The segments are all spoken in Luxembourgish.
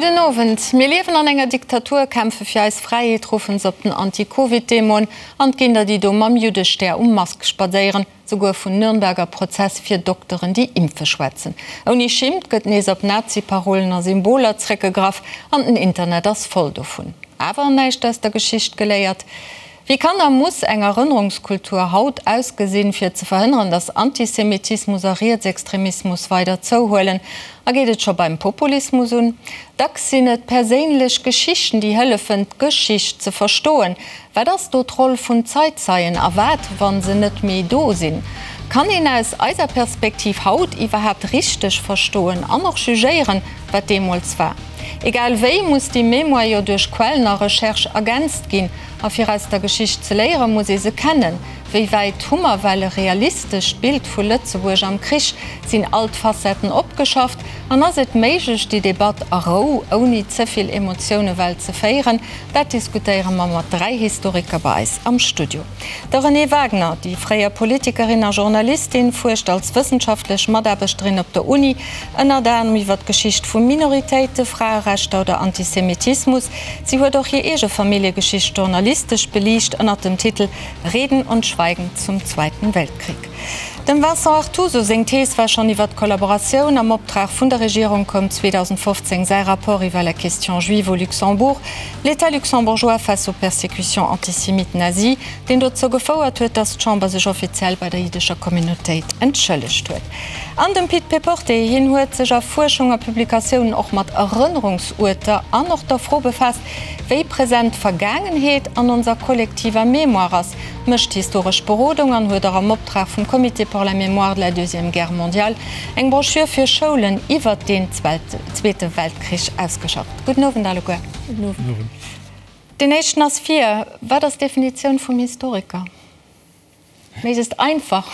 Gudden Owend. Mir liewen an enger Diktatur, kämpfe fir eis Fräiheet, ruffen se op den Anti-Covid-Demoen an 't ginn der déi do mam Juddestär um Mask spadséieren, souguer vun Nürnberger Prozess fir Dokteren déi impfe schwätzen. Ouni Schimmt gëtt nees op Nazi-Parolen a Symboler zréckgegraff an den Internet ass voll dovun. Awer näischt aus der Geschicht geléiert? Wéi kann a muss eng Erënnerungskultur haut ausgesinn, fir ze verhënneren, datt Antisemitismus a Rietsextremismus weider zouhuelen? A geet et scho beim Populismus un? Dacks sinn et perséinlech Geschichten, déi hëllefen, d'Geschicht ze verstoen. Wat ass do d'Roll vun Zeitzeien a wat, wa se net méi do sinn? Kann een aus eiser Perspektiv haut iwwerhaapt richteg verstoen an och jugéieren, wat deemools war? Egal wéi muss déi Mémoire jo duerch Quellen a Recherche ergänzt ginn. A fir aus der Geschicht ze léieren, muss ee se kennen. Wéi wäit hu mer well e realistescht Bild vu Lëtzebuerg am Krich? Sinn all d'Facetten opgeschafft? An ass et méiglech, déi Debatt a Rou, ouni ze vill Emotioune well ze féieren? Dat diskutéiere mer mat 3 Historiker bei eis am Studio. De Renée Wagener, déi fréier Politikerin a Journalistin, fuerscht als wëssenschaftlech Mataarbechterin op der Uni ënnert anerem iwwer d'Geschicht vu Minoritéite, Fraerechter oder Antisemitismus. Si huet och hir eege Familljegeschicht journalistesch beliicht ënnert dem Titel Reden und Schweigen zum Zweiten Weltkrieg. Dem Vincent Artuso seng Thees war schonn iwwer d'Kollaboratioun. Am Optrag vun der Regierung koum 2015 säi Rapport iwwer la question juive au Luxembourg, L'État luxembourgeois face aux persécutions antisémites nazies, deen dozou gefouert huet, datt d'Chamber sech offiziell bei der jiddescher Communautéit entschëllegt huet. An dem Pit Péporté, hien huet sech a Fuerschung a Publikatiounen och mat Erënnerungsuerter an och der Fro befaasst, wéi present d'Vergaangenheet an onser kollektiver Mémoire ass, mécht historesch Berodung an huet och am Optrag vum Comité pour la mémoire de la Deuxième Guerre mondiale eng Broschür fir Schoulen iwwert deen Zweete Weltkrich ausgeschafft. Gudden Owend alleguer. Gudden Owend. Deen éischten ass vir. Wat ass d'Definitioun vum Historiker? Méiglechst einfach,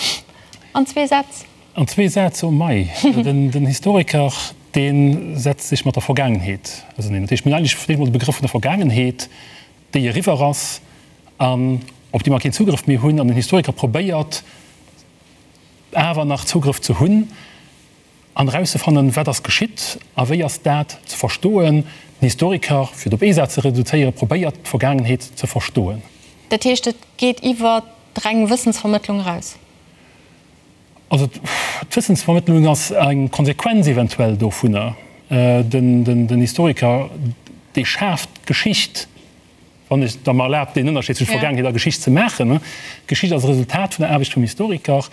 an zwee Sätz. An zwee Sätz, oh mei. Den Historiker, dee setzt sech mat der Vergaangenheet auseneen. Dat heescht, mir hunn eigentlech fir d'éischt emol de Begrëff vun der Vergaangenheet, déi eriwwer ass an op déi mer keen Zugrëff méi hunn. An den Historiker probéiert awer nach Zugrëff ze hunn. An erauszefannen, wat ass geschitt a wéi ass dat ze verstoen. Den Historiker, fir et op ee Saz ze reduzéieren, probéiert d'Vergaangenheet ze verstoen. Dat heescht, et geet iwwer d'reng Wëssensvermëttlung eraus? Also d'Wëssensvermëttlung ass eng Konsequenz eventuell dovunner. Den Historiker, dee schaaft d'Geschicht. Wann ech der mer erlaabt, deen Ënnerscheed zwësche Vergaangenheet a Geschicht ze maachen. D'Geschicht ass e Resultat vun der Aarbecht vum Historiker.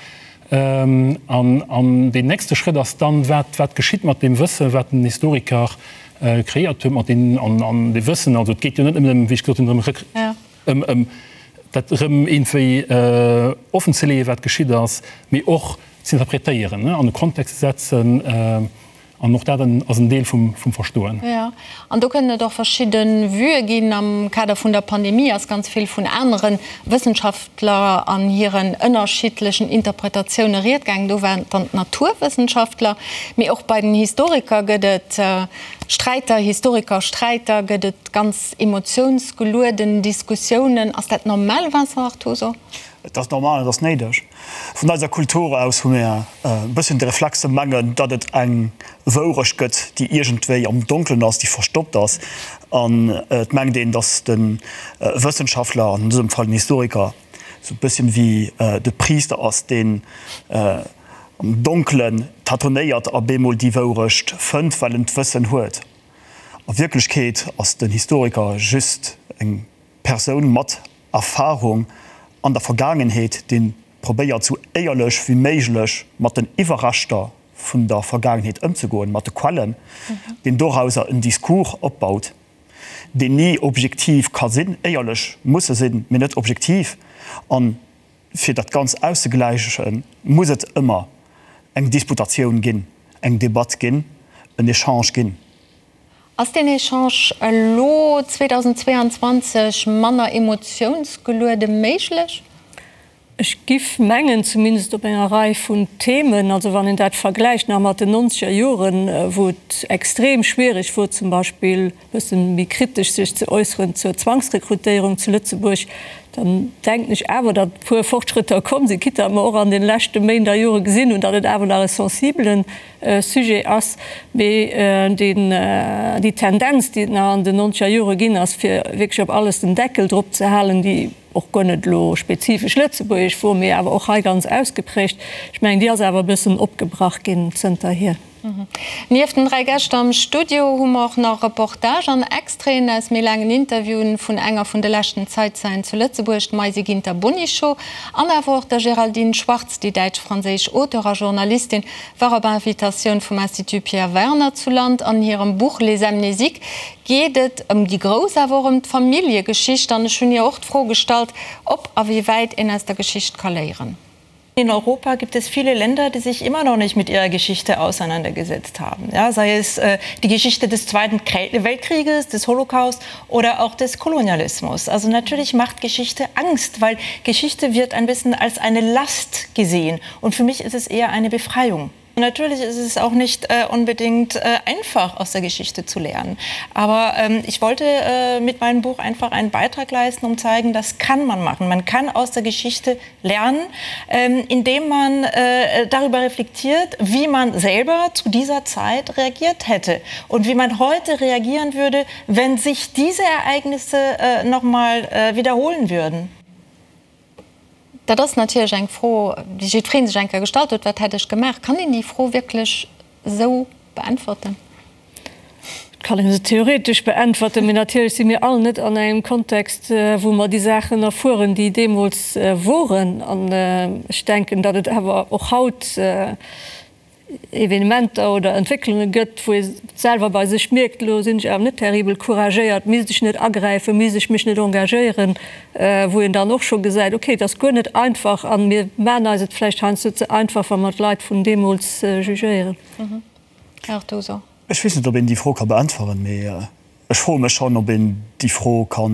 An deen nächste Schrëtt ass dann, wat, wat geschitt mat deem Wëssen, wat den Historiker kreéiert huet, mat deem, an, an dee Wëssen, also et geet jo net nëmmen ëm, wéi ech gesot hunn, drëm, ëm, ëm dat erëm iergendwéi offenzeleeën, wat geschitt ass, mee och z'interpretéieren, an e Kontext ze setzen. An och dat ass en Deel vum Verstoen. Jo, an do kënnen et och verschidde Vuë ginn. Am Kader vun der Pandemie ass ganz vill vun anere Wëssenschaftler an hiren ënnerschiddlechen Interpretatioune ried gaangen. Do waren et dann d'Naturwëssenschaftler. Mee och bei den Historiker gëtt et Sträiter, Historikersträiter, gëtt et ganz emotiounsgelueden Diskussiounen. Ass dat normal, Vincent Artuso? Et ass normal, et ass néideg. Vun eiser Kultur aus hu mir e bësschen de Reflex ze mengen, datt et eng Wourecht gëtt, déi iergendwéi am Donkelen ass, déi verstoppt ass. An et mengt een, datt de Wëssenschaftler, an dësem Fall den Historiker, esou e bësschen wéi de Priister ass, deen am Donkelen tatonéiert a bemol déi Wourecht fënnt, well en d'Wëssen huet. A Wierklechkeet ass den Historiker just eng Persoun mat Erfahrung an der Vergaangenheet, dee probéiert sou éierlech wéi méiglech mat den Iwwerreschter vun der Vergaangenheet ëmzegoen, mat de Quellen, deen dorauser en Discours opbaut, deen ni objektiv ka sinn, éierlech muss e sinn, mee net objektiv. A fir dat Ganzt auszegläichen, muss et ëmmer eng Disputatioun ginn, eng Debatt ginn, en Echange ginn. Ass deen Echange elo 2022 manner emotiounsgeluede méiglech? Ech giff mengen, zumindest op enger Rei vun Themen, also wann een dat vergläicht nach mat den nonzeger Joren, wou et extrem schwierig wor zum Beispill e bëssen méi kritesch sech ze äusseren zur Zwangsrekrutéierung zu Lëtzebuerg, dann denken ech awer, datt e puer Fortschrëtter komm sinn, quitte datt mer och an den leschte Méint a Jore gesinn hunn, datt et awer nach e sensibelen Sujet ass. Mee deen, déi Tendenz, déi et nach an den nonzeger Jore ginn ass, fir wierklech op alles den Deckel drop ze halen, déi, och guer net elo spezifesch lëtzebuergesch wor, mee awer och hei ganz ausgeprägt, ech mengen, déi ass awer e bëssen opgebrach ginn zënterhier. Nieft den 3 Gäscht am Studio hu mer och nach Reportage an Extraiten aus méi laangen Interviewen vun enger vun de leschten Zeizeien zu Lëtzebuerg, d'Maisy Ginter-Bonichot, an awer och der Géraldine Schwarz, déi däitsch-franséisch Auteur a Journalistin war op Invitatioun vum Institut Pierre Werner zu Land. An hirem Buch Les Amnésiques geet et ëm déi grouss, awer och ëm d'Familljegeschicht. An ech hunn hir och d'Fro gestallt, ob a wéi wäit een aus der Geschicht ka léieren. In Europa gibt es viele Länder, die sich immer noch nicht mit ihrer Geschichte auseinandergesetzt haben. Ja, sei es äh, die Geschichte des Zweiten Weltkrieges, des Holocaust oder auch des Kolonialismus. Also natürlich macht Geschichte Angst, weil Geschichte wird ein bisschen als eine Last gesehen. Und für mich ist es eher eine Befreiung. Natürlich ist es auch nicht äh, unbedingt äh, einfach aus der Geschichte zu lernen. Aber ähm, ich wollte äh, mit meinem Buch einfach einen Beitrag leisten, um zeigen, das kann man machen. Man kann aus der Geschichte lernen, ähm, indem man äh, darüber reflektiert, wie man selber zu dieser Zeit reagiert hätte und wie man heute reagieren würde, wenn sich diese Ereignisse äh, noch mal äh, wiederholen würden. Dat ass natierlech eng Fro, déi jiddweree sech eng Kéier gestallt huet, Wat hätt ech gemaach? Kann een déi Fro wierklech esou beäntwerten? Et kann ee se theoretesch beäntwerten, mee natierlech si mir all net an engem Kontext, wou mer déi Saachen erfueren, déi deemools woren. An ech denken, datt et awer och haut Evenementer oder Entwécklunge gëtt, wou ee selwer bei sech mierkt, elo sinn ech awer net terribel couragéiert, misst ech net agräifen, misst ech mech net engagéieren, wou een dann och scho gesäit, okay, et ass guer net einfach a mir maachen eis et vläicht heiansdo ze einfach, wa mer d'Leit vun deemools jugéieren. Här Artuso. Ech weess net, ob een déi Fro ka beäntweren, mee ech froe mech schonn, ob een déi Fro ka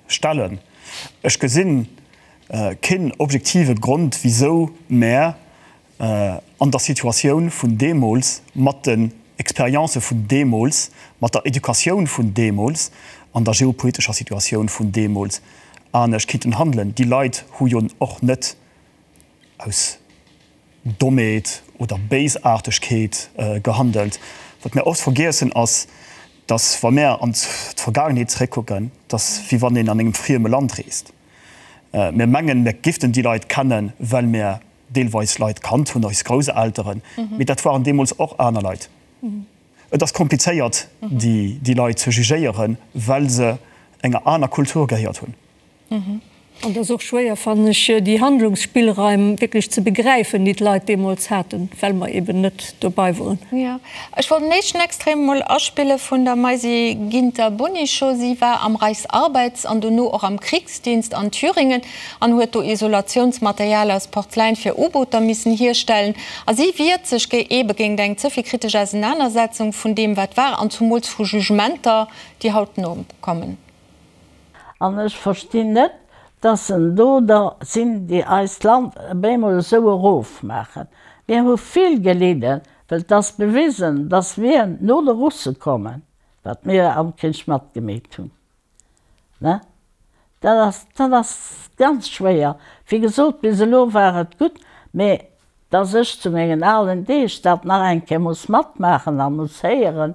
stellen. Ech gesinn keen objektive Grond, wisou mär an der Situatioun vun deemools, mat den Experiences vun deemools, mat der Educatioun vun deemools, an der geopolitescher Situatioun vun deemools anescht kinnten handelen. Déi Leit hu jo och net aus Dommheet oder Béisaartegkeet gehandelt. Wat mär oft vergiessen ass, dass wa mär an d'Vergaangenheet zeréckkucken, dass wéi wann een an engem frieme Land reest. Mir mengen, mir giften déi Leit kennen, well mir deelweis Leit kannt hunn, eis Grousselteren, mee dat waren deemools och aner Leit. Et ass komplizéiert, déi Leit ze jugéieren, well se enger aner Kultur gehéiert hunn. An et ass och schwéier, fannen ech, déi Handlungsspillraim wierklech ze begräifen, déi d'Leit deemools haten, well mer eben net dobei woren. Jo, ech wollt den éischten Extrait mol aspille vun der Maisy Ginter-Bonicho. Si war am Reichsarbeits an dono och am Kriegsdienst an Thüringen. an huet do Isolatiounsmaterial aus Porzeläin fir U-Booter missen hierstellen. A si wiert sech eebe géint eng ze vill kritesch Ausenanersetzung vun deem, wat war, an zumools vu Jugementer, déi haut nokommen. An ech verstinn net, dass en do der sinn, déi eist Land op eemol esou erofmaachen. Mir hu vill gelidden, well 't ass bewisen, dass mir no de Russe kommen, wat mir am Krich matgemeet hunn. Ne? Dat ass, dat ass ganz schwéier. Wéi gesot, bis elo war et gutt, mee dass ech zu mengen alen Deeg dat nach eng Kéier muss matmaachen a muss héieren,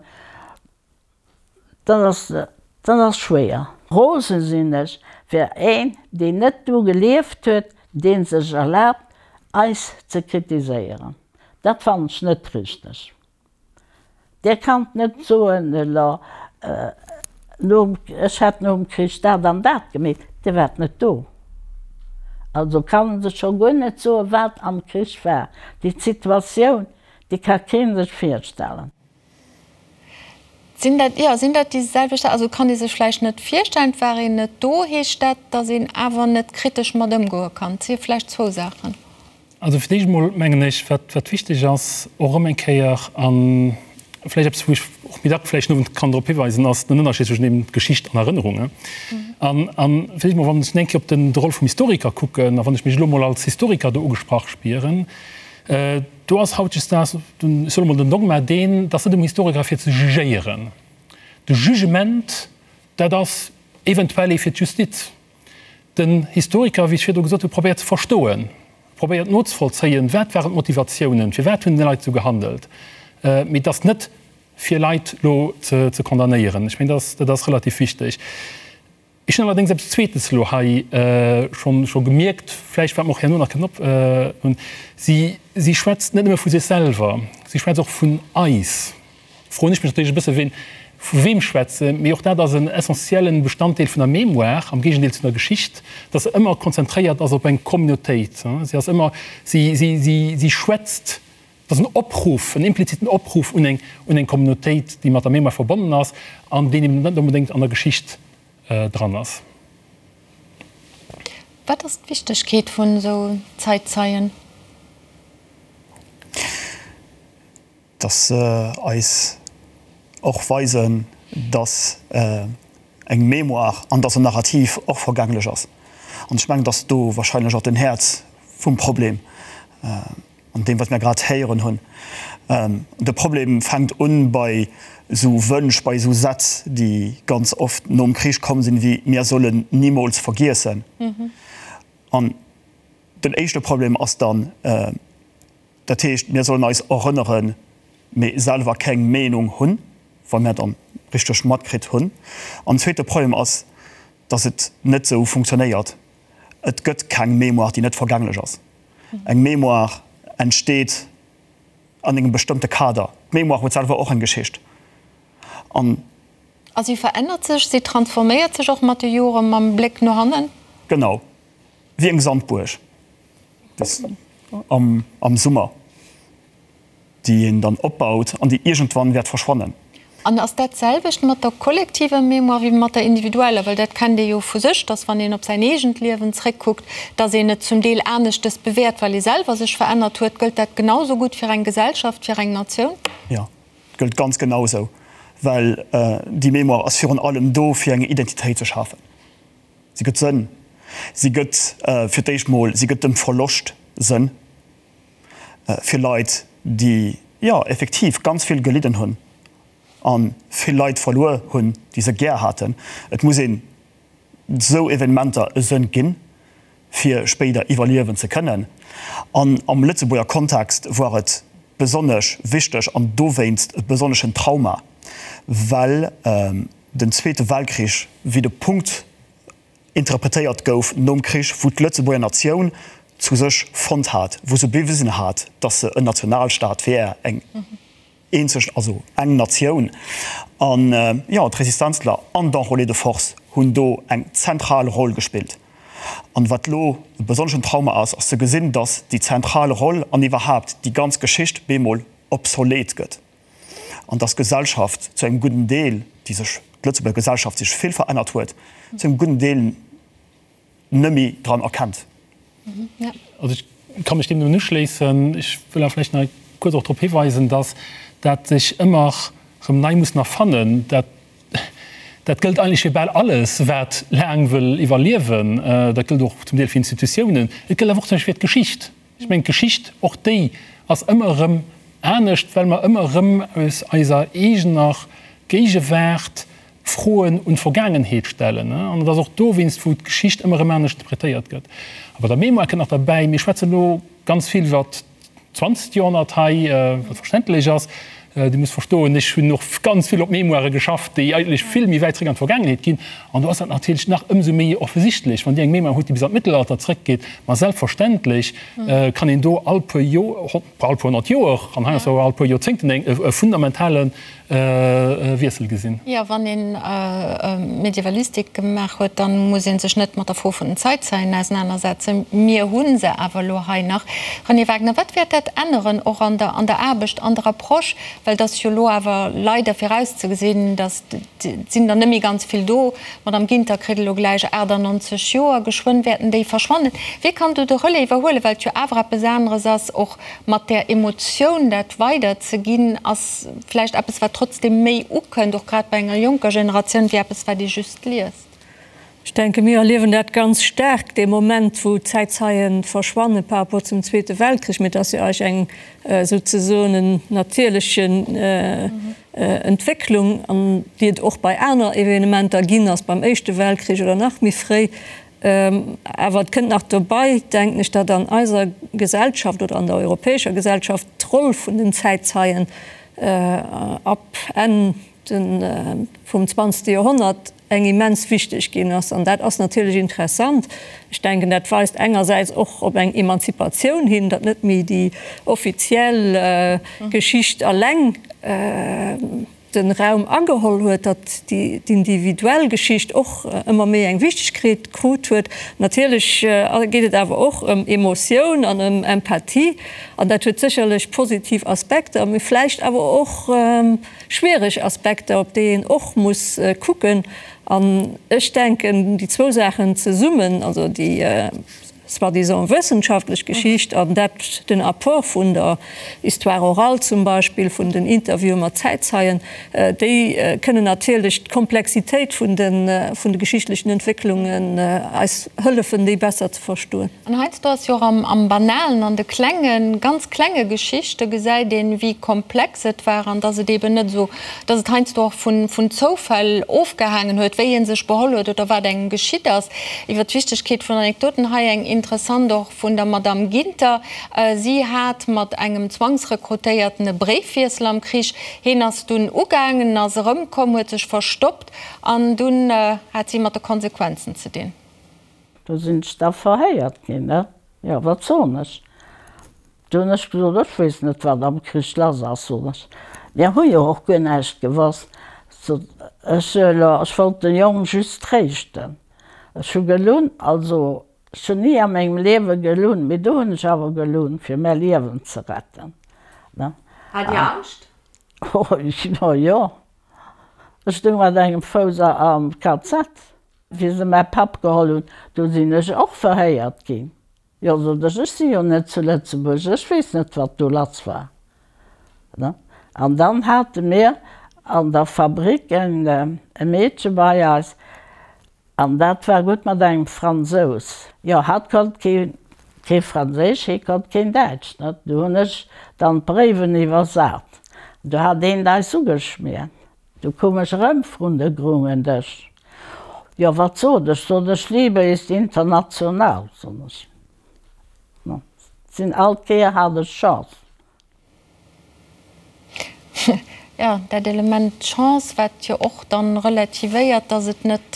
dat ass, dat ass schwéier. Rose sinn ech fir een, deen net do gelieft huet, dee sech erlaabt, eis ze kritiséieren. Dat fannen ech net richteg. Dir kannt net soen, elo, nom, ech hätt nom Krich dat an dat gemeet. Dir waart net do. Also kann en sech scho guer net soen, wat am Krich war. Déi Situatioun, déi ka kee sech virstellen. Sinn dat, jo, sinn dat déi selwecht, also kann ee sech vläicht net virstellen, et war een net do. Heescht dat, datt een awer net kritesch mat ëmgoe kann? Et si vläicht zwou Saachen. Also fir d'éischt emol mengen ech, wat, wat wichteg ass, och erëm eng Kéier, a vläicht eppes, wou ech och méi dack vläicht den Owend kann drop hiweisen, ass den Ënnerscheed zwëschen eben Geschicht an Erënnerung. An, an vläicht emol, wann ech eng Kéier op den, de Roll vum Historiker kucken, a wann ech mech elo emol als Historiker do ugesprach spieren, do ass hautdesdaags, ech soen emol, den Dogma deen, dass net um Historiker fir ze jugéieren. De Jugement, dat ass eventuell ee fir d'Justiz. Den Historiker, wéi ech virdru gesot hunn, probéiert ze verstoen, probéiert nozevollzéien, wat waren d'Motivatiounen, firwat hunn déi Leit esou gehandelt, mee et ass net fir Leit elo ze condamnéieren. Ech mengen, dat ass relativ wichteg. Ech hunn allerdéngs eppes Zweetes elo hei scho gemierkt, vläicht wat mer och herno nach kënnen op. Si schwätzt net nëmme vu sech selwer, si schwätzt och vun eis. Froen ech mech natierlech e bësse ween vu weem schwätze, mee och dat ass en essentiellen Bestanddeel vun der Mémoire, am Géigendeel zu der Geschicht, dass se ëmmer konzentréiert ass op eng Communautéit. Si ass ëmmer, si, si, si, si schwätzt, et ass en Opruff, en impliziten Opruff un eng, un eng Communautéit, déi mat der Mémoire verbonnen ass an deen eben net onbedéngt an der Geschicht dran ass. Wat ass d'Wichtegkeet vun esou Zäitzeien? Dass se eis och weisen, dass eng Mémoire an dass en Narrativ och vergänglech ass. An ech mengen, dass do wahrscheinlech och den Häerz vum Problem an deem, wat mir grad héieren hunn. De Problem fänkt un bei esou Wënsch, bei esou Sätz, déi ganz oft nom Krich komm sinn, wéi Mir sollen nimools vergiessen. An den éischte Problem ass dann, Dat heescht, mir sollen eis erënneren, mee selwer keng Meenung hunn, wa mir dann richteg matkritt hunn. An den zweete Problem ass, dass et net esou funktionéiert. Et gëtt keng Mémoire, déi net vergänglech ass. Eng Mémoire entsteet an engem bestëmmte Kader. D'Mémoire huet selwer och eng Geschicht. An. A si verännert sech, si transforméiert sech och mat de Joren, mam Bléck no hannen? Genau, wéi eng Sandbuerg. Am Summer, déi een dann opbaut an déi iergendwann wäert verschwannen. An ass dat d'selwecht mat der kollektiver Mémoire wéi mat der individueller? Well dat kennt ee jo vu sech, dass wann een op säin eegent Liewen zréckkuckt, dass een et zum Deel aneschtes bewäert, well ee selwer sech verännert huet. Gëllt dat genau sou gutt fir eng Gesellschaft, fir eng Natioun? Jo, et gëllt ganz genau esou, well déi Mémoire ass virun allem do, fir eng Identitéit ze schafen. Si gëtt Sënn. Si gëtt fir d'éischt mol, si gëtt dem Verloscht Sënn fir Leit, déi, jo, effektiv ganz vill gelidden hunn a vill Leit verluer hunn, déi se gär haten. Et muss een esou Evenementer e Sënn ginn, fir spéider iwwerliewen ze kënnen. An am Lëtzebuerger Kontext war et besonnesch wichteg an dowéinst e besonneschen Trauma, well den Zweete Weltkrich wéi de Punkt interpretéiert gouf nom Krich, wou d'Lëtzebuerger Natioun zu sech fonnt hat, wou se bewisen hat, datt se en Nationalstaat wär, eng eenzeg, also eng Natioun. An jo, d'Resistenzler an d'Enrôlés de force hunn do eng zentral Roll gespillt. An wat elo e besonneschen Trauma ass, ass ze gesinn, datt déi zentral Roll an iwwerhaapt déi ganz Geschicht bemol obsolet gëtt. An dass d'Gesellschaft zu engem gudden Deel, déi sech, d'Lëtzebuerger Gesellschaft sech vill verännert huet, zu engem gudden Deel nëmme dran erkennt. Also ech ka mech deem nëmmen uschléissen. Ech wëll awer vläicht nach kuerz och drop hiweisen, dass dat sech ëmmer erëm nei muss erfannen. Dat, dat gëllt eigentlech fir bal alles, wat laang wëll iwwerliewen. Dat gëllt och zum Deel fir Institutiounen. Et gëllt awer och zum Beispill fir d'Geschicht. Ech mengen, d'Geschicht, och déi ass ëmmer erëm anescht, well mer ëmmer erëm aus eiser eegener Géigewaart Froen un d'Vergaangenheet stellen. An et ass och dowéinst, wou d'Geschicht ëmmer erëm anescht interpretéiert gëtt. A bei der Mémoire kënnt nach derbäi, mir schwätzen elo ganz vill iwwer d'zwanzegt Joerhonnert hei, wat verständlech ass. Dir musst verstoen, ech hunn och ganz vill op Mémoirë geschafft, déi eigentlech vill méi wäit zréck an d'Vergaangenheet ginn. An do ass dat natierlech nach ëmsou méi offensichtlech, wann Dir eng Mémoire hutt, déi bis an d'Mëttelalter zréckgeet. Ma selbstverständlech kann een do all puer Joer, all puer 100 Joer an heiansdo all puer Joerzéngten e fundamentale Wiessel gesinn. Jo, wann ee Medievalistik gemaach huet, da muss ee sech net mat der Fro vun den Zäitzeien ausenanersetzen. Mir hu se awer elo hei nach. Renée Wagner, wat wäert dat änneren, och an der an der Aarbecht, an der Approche? Well et ass jo elo awer leider virauszegesinn, datt et sinn der net méi ganz vill do. D'Madame Ginter kritt elo gläich 98 Joer, geschwënn wäerten déi verschwannen. Wie kann do de Relais iwwerhuelen, well et jo awer eppes aneres ass, och mat där Emotioun dat weiderzeginn, ass vläicht eppes, wat trotzdeem méi ukënnt, och grad bei enger jonker Generatioun, wéi eppes, wat ee just liest. Ech denke mir erliewen dat ganz staark, dee Moment wou d'Zäitzeie verschwanne par rapport zum Zweete Weltkrich. Mee et ass jo eigentlech eng souzesoen en natierleche Entwécklung, an déi et och bei aner Evenementer ginn ass, beim Éischte Weltkrich oder nach méi fréi. Awer et kënnt nach dobei, denken ech, datt an eiser Gesellschaft oder an der europäescher Gesellschaft d'Roll vun den Zäitzeien ab Enn vum zwanzegste Joerhonnert eng immens wichteg ginn ass. An dat ass natierlech interessant. Ech denken, dat weist engersäits och op eng Emanzipatioun hin, datt net méi déi offiziell Geschicht alleng de Raum ageholl huet, datt d'individuell Geschicht och ëmmer méi eng Wichtegkeet krut huet. Natierlech geet et awer och ëm Emotioun an ëm Empathie. An dat huet sécherlech positiv Aspekter, mee vläicht awer och schwiereg Aspekter, op déi een och muss kucken. An ech denken, déi zwou Saachen zesummen, also déi soi-disant wëssenschaftlech Geschicht an dat, den Apport vun der Histoire orale zum Beispill, vun den Interviewe mat Zäitzeien, déi kënnen natierlech d'Komplexitéit vun de geschichtlechen Entwécklungen eis hëllefen, déi besser ze verstoen. An heiansdo ass jo och am Banalen, an de klengen, ganz klenge Geschichte gesäit een, wéi komplex et war an dass et eeben net esou, dass et heiansdo och vun Zoufäll ofgehaangen huet, wéi ee sech beholl huet oder wat engem geschitt ass. Iwwer d'Wichtegkeet vun Anekdoten hei eng interessant och vun der Madame Ginter. Si hat mat engem Zwangsrekrutéierten e Bréifwiessel am Krich. Heen ass dunn ugaangen, ass erëmkomm, huet sech verstoppt an dunn hat si mat de Konsequenzen ze dinn. Do sinn ech da verhéiert ginn, ne? Jo, wat soen ech? Du hunn ech gesot, ech weess net, wat am Krich lass ass, soen ech. Mir hu jo och guer näischt gewosst. Sot ech, elo, ech wollt de Jong just tréischten. Ech hu gelunn, also ech hunn ni a mengem Liewe gelunn, mee do hunn ech awer gelunn, fir mäi Liewen ze retten, ne? Hat Dir Angscht? Oh jo, ech stoung mat engem Fouss am KZ. Wéi se mäi Papp geholl hunn, do sinn ech och verhéiert ginn. Jo, sot ech, ech si jo net zu Lëtzebuerg, ech weess net, wat do lass war. An dann hate mir an der Fabrik e Meedche bei eis, an dat war gutt mat engem Fransous. Jo, hatt konnt kee Franséisch, hie konnt keen Däitsch. Du hunn ech dann d'Bréiwen iwwersat. Du hat eent eis ugeschmiert. Du koum ech erëm vrun de grungen Dësch. Jo, wat sot ech? Sot ech, Liebe ist international, sot ech. No, sinn all Kéier hat ech Chance. Jo, dat Element Chance, wat jo och dann relativéiert, dass et net,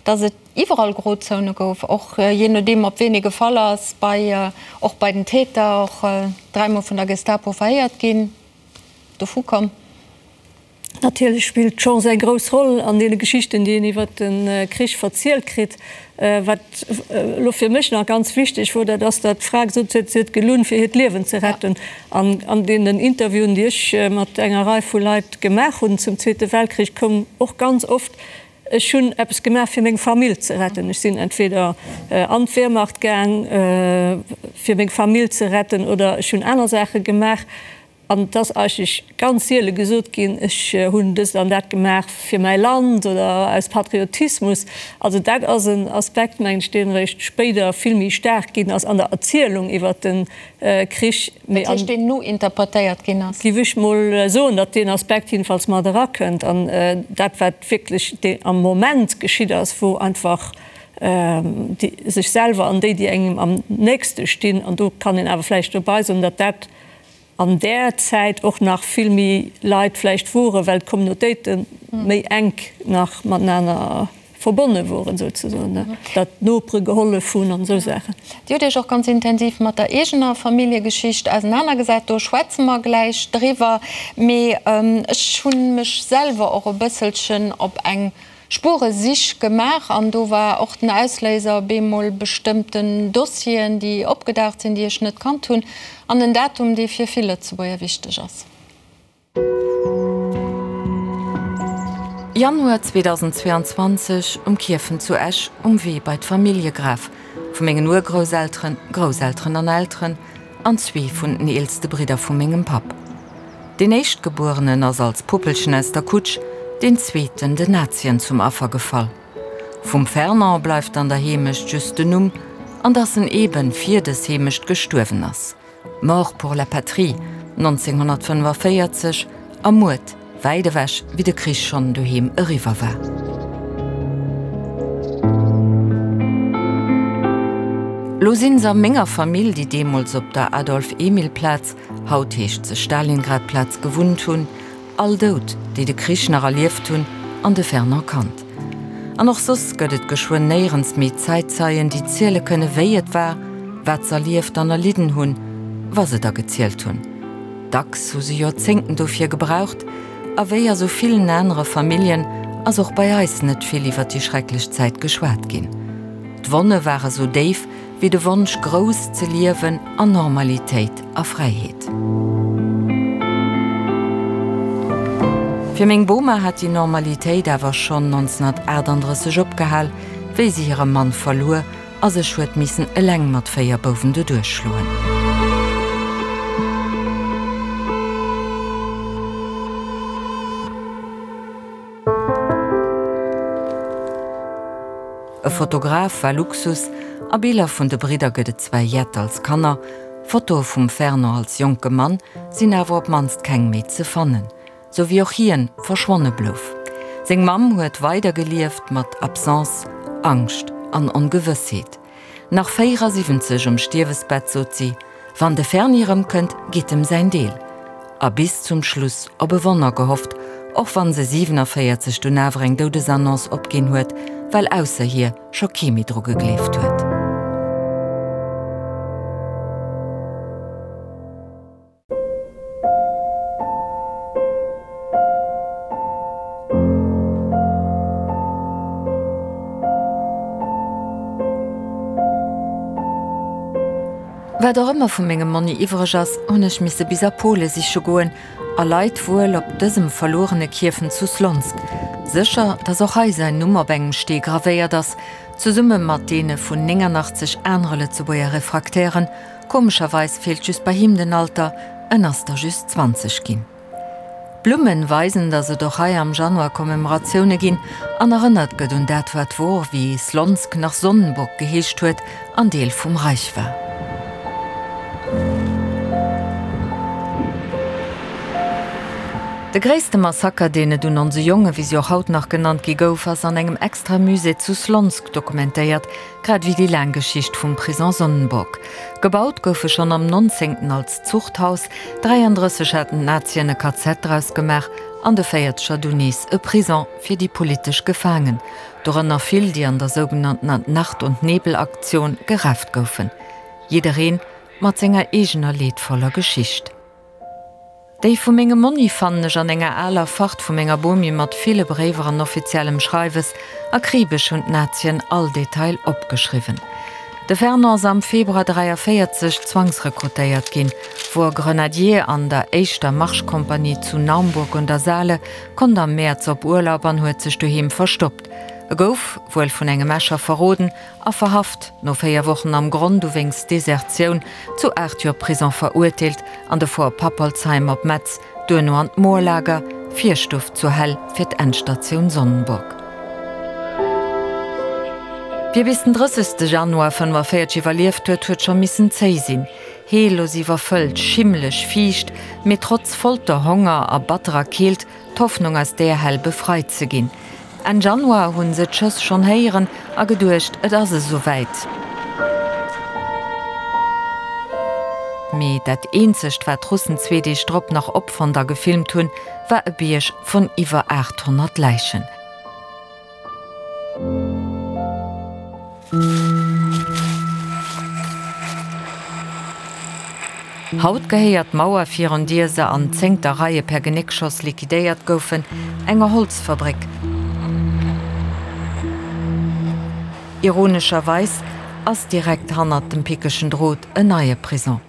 dass et iwwerall Grozone gouf, och jee nodeem op ween ee gefall ass, bei, och bei den Täter, och dräimol vun der Gestapo verhéiert ginn. Dovu komm. Natierlech spillt d'Chance eng grouss Roll an deene Geschichten, déi een iwwer de Krich verzielt kritt. Wat elo fir mech nach ganz wichteg wor, dat ass, datt d'Fra gesot huet, si huet gelunn, fir hiert Liewen ze retten. An an deenen Interviewen, déi ech mat enger Rei vu Leit gemaach hunn zum Zweete Weltkrich, koum och ganz oft, Ech hunn eppes gemaach, fir meng Famill ze retten. Ech sinn entweder an d'Wehrmacht gaang, fir meng Famill ze retten, oder ech hunn aner Saache gemaach. An et ass eigentlech ganz siele gesot ginn, ech hunn dëst an dat gemaach fir mäi Land oder aus Patriotismus. Also dat ass en Aspekt, mengen ech, deen eréischt spéider vill méi staark ginn ass an der Erzielung iwwert de Krich. Dat heescht, deen nointerpretéiert ginn ass? Géif ech mol soen, datt deen Aspekt jedenfalls mat erakënnt. An dat, wat wierklech am Moment geschitt ass, wou einfach déi sech selwer an déi, déi engem am nächste stinn, an do kann een awer vläicht dobei soen, datt dat an där Zäit och nach vill méi Leit vläicht woren, well d'Communautéite méi enk nach matenaner verbonne woren souzesoen, datt d'Nopere gehollef hunn an esou Saachen. Dir hutt Iech och ganz intensiv mat der eegener Familljegeschicht ausenanergesat, do schwätze mer gläich driwwer. Mee ech hu mech selwer och e bësselchen op eng Spueresich gemaach an do war och den Ausléiser bemol bestëmmten Dossieren, déi opgedaucht sinn, déi ech net kannt hunn, an en Datum, dee fir vill Lëtzebuerger wichteg ass. Januar 2022 um Kierfen zu Esch um Wee bei d'Familljegraf vu mengen Urgrousselteren, Grousselteren an Elteren an zwee vun den eelste Bridder vu mengem Papp. Deen Éischtgebuerenen ass als Puppelchen aus der Kutsch, deen zweeten den Nazien zum Affer gefall. Vum Fernand bleift an der Heemecht just den Numm an dass en eben fir des Heemecht gestuerwen ass. Mort pour la patrie, 1945, ermuert, wäit ewech, wéi de Krich schonn doheem eriwwer war. Lo sinn se a menger Famill, déi deemools op der Adolphe-Emile-Plaz, haut heescht se Stalingrad-Plaz, gewunnt hunn, All dout, déi de Krich nach erlieft hunn, an de Fernand Kant. An och soss gëtt et geschwënn néierens méi Zäitzeien, déi ziele kënne wéi et war, wat s'erlieft an erlidden hunn, wa se da gezielt hunn. Dacks hu se Joerzéngten dofir gebraucht. A wéi a sou villen anere Familljen ass och bei eis net vill iwwer déi schrecklech Zäit geschwat ginn. D'Wonne ware sou déif, wéi de Wonsch grouss ze liewen an Normalitéit a Fräiheet. Fir meng Boma hat déi Normalitéit awer schonn 1938 opgehal, wéi se hire Mann verluer a sech huet missen eleng mat 4 Bouwen doduerch schloen. E Fotograf war Luxus, a Biller vun de Bridder gëtt et zwar jett als Kanner, Fotoe vum Fernand als jonke Mann sinn awer op d'mannst keng méi ze fannen, sou wéi och hien verschwonne blouf. Seng Mamm huet weider gelieft mat Absence, Angscht an Ongewëssheet. Nach 74 um Stierwesbett sot si, Wann de Ferni erëmkënnt, gitt em säin Deel. A bis zum Schluss op e Wonner gehofft, och wann se 47 dunn awer eng Doudesannonce opginn huet, well ausser hir scho kee méi dru gegleeft huet. Wat och ëmmer vu mengem Monni iwwreg ass, hunn ech misse bis a Pole siche goen, a leit wuel op dësem verluerene Kierfen zu Slonsk. Sécher, datt och hei säin Numm op engem Stee gravéiert ass, zesumme mat deene vun 89 anere Lëtzebuerger Refraktären, Komescherweis feelt just bei him den Alter, en ass der just 20 ginn. D'Blummen weisen, datt et och hei am Januar Commemoratioune ginn an erënnert gëtt un dat wat wor, wéi Slonsk nach Sonnenburg geheescht huet an Deel vum Reich war. De gréisste Massaker, deen et un onse Jongen, wéi si och haut nach genannt gi gouf, ass an engem extra Musée zu Slonsk dokumentéiert, Grad ewéi déi laang Geschicht vum Prison Sonnenburg. Gebaut gouf e schonn am 19. als Zuchthaus, 33 haten d'Nazien e KZ draus gemaach an de Véierzeger dunn nees e Prison fir déi politesch Gefaangen, dorënner vill, déi an der sougenanntener Nacht und Nebel-Aktion gerafft goufen. Jiddereen mat senger eegener leedvoller Geschicht. Déi vu mengem Monni fannen ech an enger aler Fart vu menger Bomi mat ville Bréiwer an offiziellem Schreiwes. Akribesch hunn d'Nazien all Detail opgeschriwwen. De Fernand ass am Februar 43 zwangsrekrutéiert ginn, wor Grenadier an der éischter Marschkompanie zu Naumburg un der Saale, konnt am Mäerz op Urlaub an huet sech doheem verstoppt. E gouf, wuel vun engem Escher verroden, a verhaft, no 4 Wochen am Gronn, du wéinst Desertioun zu 8 Joer Prison verurteelt, an de Fort Pappolzheim op Metz, duerno an d'Moorlager, Virstuff zur Hell fir d'Endstatioun Sonnenburg. Wie bis den 30. Januar 45 iwwerlieft huet, huet scho missen zéi sinn. Heellos iwwerfëllt, schimmeleg, fiicht, mee trotz Folter, Honger a batterer Keelt d'Hoffnung aus deer Hell befreit ze ginn. Enn Januar hunn se d'Schëss schonn héieren a geduecht, et ass esou wäit. Mee dat eenzegt, wat d'Russen zwee Deeg drop nach opfonnt a gefilmt hunn, war e Bierg vun iwwer 800 Läichen. Haut gehéiert d'Mauer, virun dier se an zéngter Reie per Genéckschoss liquidéiert goufen, enger Holzfabréck. Ironescherweis ass direkt hannert dem pickegen Drot en neie Prison.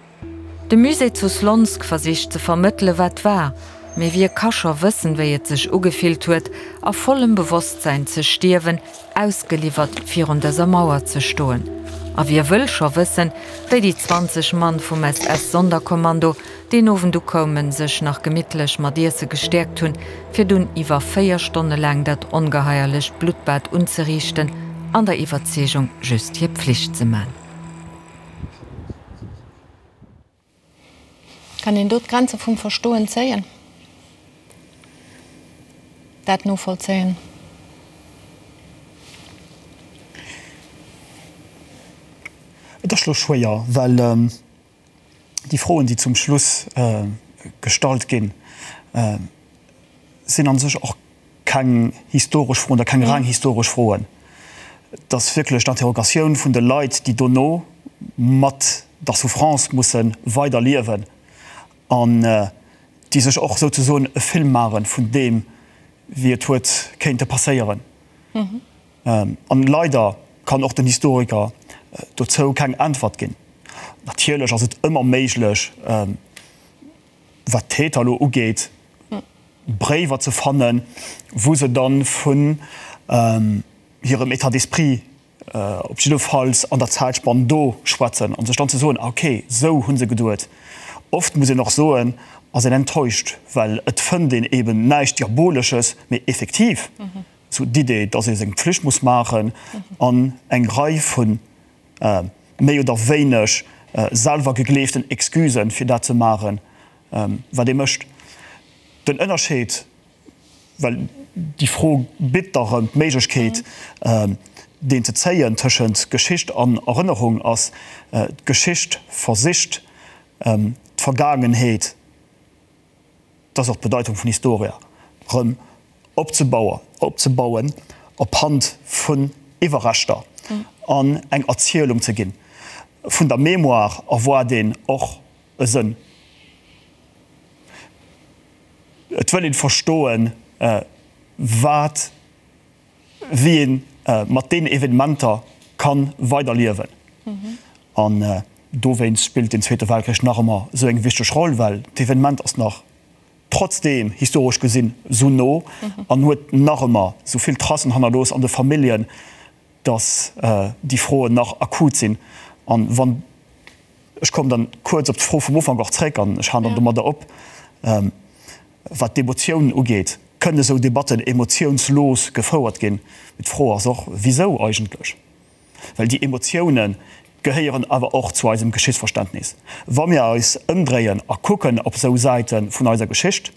De Musée zu Slonsk versicht ze vermëttele wat war. Mee wie ka scho wëssen, wéi et sech ugefillt huet, a vollem Bewosstsäin ze stierwen, ausgeliwwert virun dëser Mauer ze stoen? A wie wëll scho wëssen, wéi déi 20 Mann vum SS-Sonderkommando deen Owend ukoumen, sech nach gemittlech mat Iesse gestäerkt hunn, fir dunn iwwer 4 Stonne laang dat ongeheierlecht Bluttbad unzeriichten, an der Iwwerzeegung, just hir Pflicht ze man? Kann een do d'Grenze vum Verstoen zéien? Dat novollzéien? Et ass elo schwéier, well déi Froen, déi zum Schluss gestallt ginn, sinn a sech och keng historesch Froen oder keng reng historesch Froen. Et ass wierklech d'Interrogatioun vun de Leit, déi dono mat der Souffrance musse weider liewen an déi sech och souzesoen e Film maache vun deem, wéi et huet kéinte passéieren. An leider kann och den Historiker dozou keng Äntwert ginn. Natierlech ass et ëmmer méiglech, wat d'Täter elo ugeet, Bréiwer ze fannen, wou se dann vun hirem État d'esprit op jiddefalls an der Zäitspann do schwätzen an sech dann ze soen, ah okay, esou hu se geduet. Oft muss een och soen, ass een enttäuscht, well et fënnt een eben näischt Diabolesches, mee effektiv esou d'Idee, dass ee seng Pflicht muss maachen an eng Rei vu méi oder wéineg selwer gegleeften Excusen, fir dat ze maachen, wat ee mécht. Den Ënnerscheed, well déi Fro bitt da rëm d'Méiglechkeet, deen ze zéien tëschent Geschicht an Erënnerung, ass, D'Geschicht versicht, d'Vergaangenheet, dat ass och d'Bedeitung vun Historia, rëm opzebauen op Hand vun Iwwerreschter an eng Erzielung ze ginn. Vun der Mémoire erwaart een och e Sënn. Et wëll een verstoen, wat, wéi een mat deenen Evenementer ka weider liewen. An dowéinst spillt den Zweete Weltkrich nach ëmmer esou eng wichteg Roll, well d'Evenement ass nach trotzdeem historesch gesinn esou no an huet nach ëmmer esou vill Tracen hannerlooss an de Familljen, dass déi Froen nach akut sinn. An wann, ech kommen dann kuerz op d'Fro vum Ufank och zréck an ech halen dann domadder op, wat d'Emotiounen ugeet, kënnen esou Debatten emotiounslos gefouert ginn? Mee d'Fro ass och, wisou eigentlech? Well déi Emotioune gehéieren awer och zu eisem Geschichtsverständnis. Wa mir eis ëmdréien a kucken op esou Säite vun eiser Geschicht,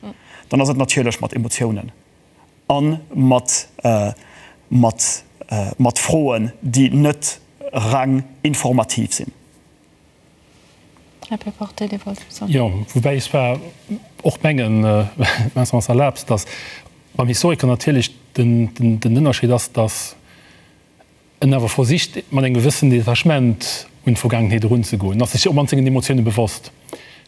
dann ass et natierlech mat Emotiounen a mat, mat, mat Froen, déi net reng informativ sinn. Här Péporté, Dir wollt soen. Jo, woubäi ech zwar och mengen, Vincent, wann s de erlaabs, datt beim Historiker natierlech den Ënnerscheed ass, datt en awer versicht, mat engem gewëssen Detachement un d'Vergaangenheet erunzegoen, ass sech och mat sengen Emotioune bewosst,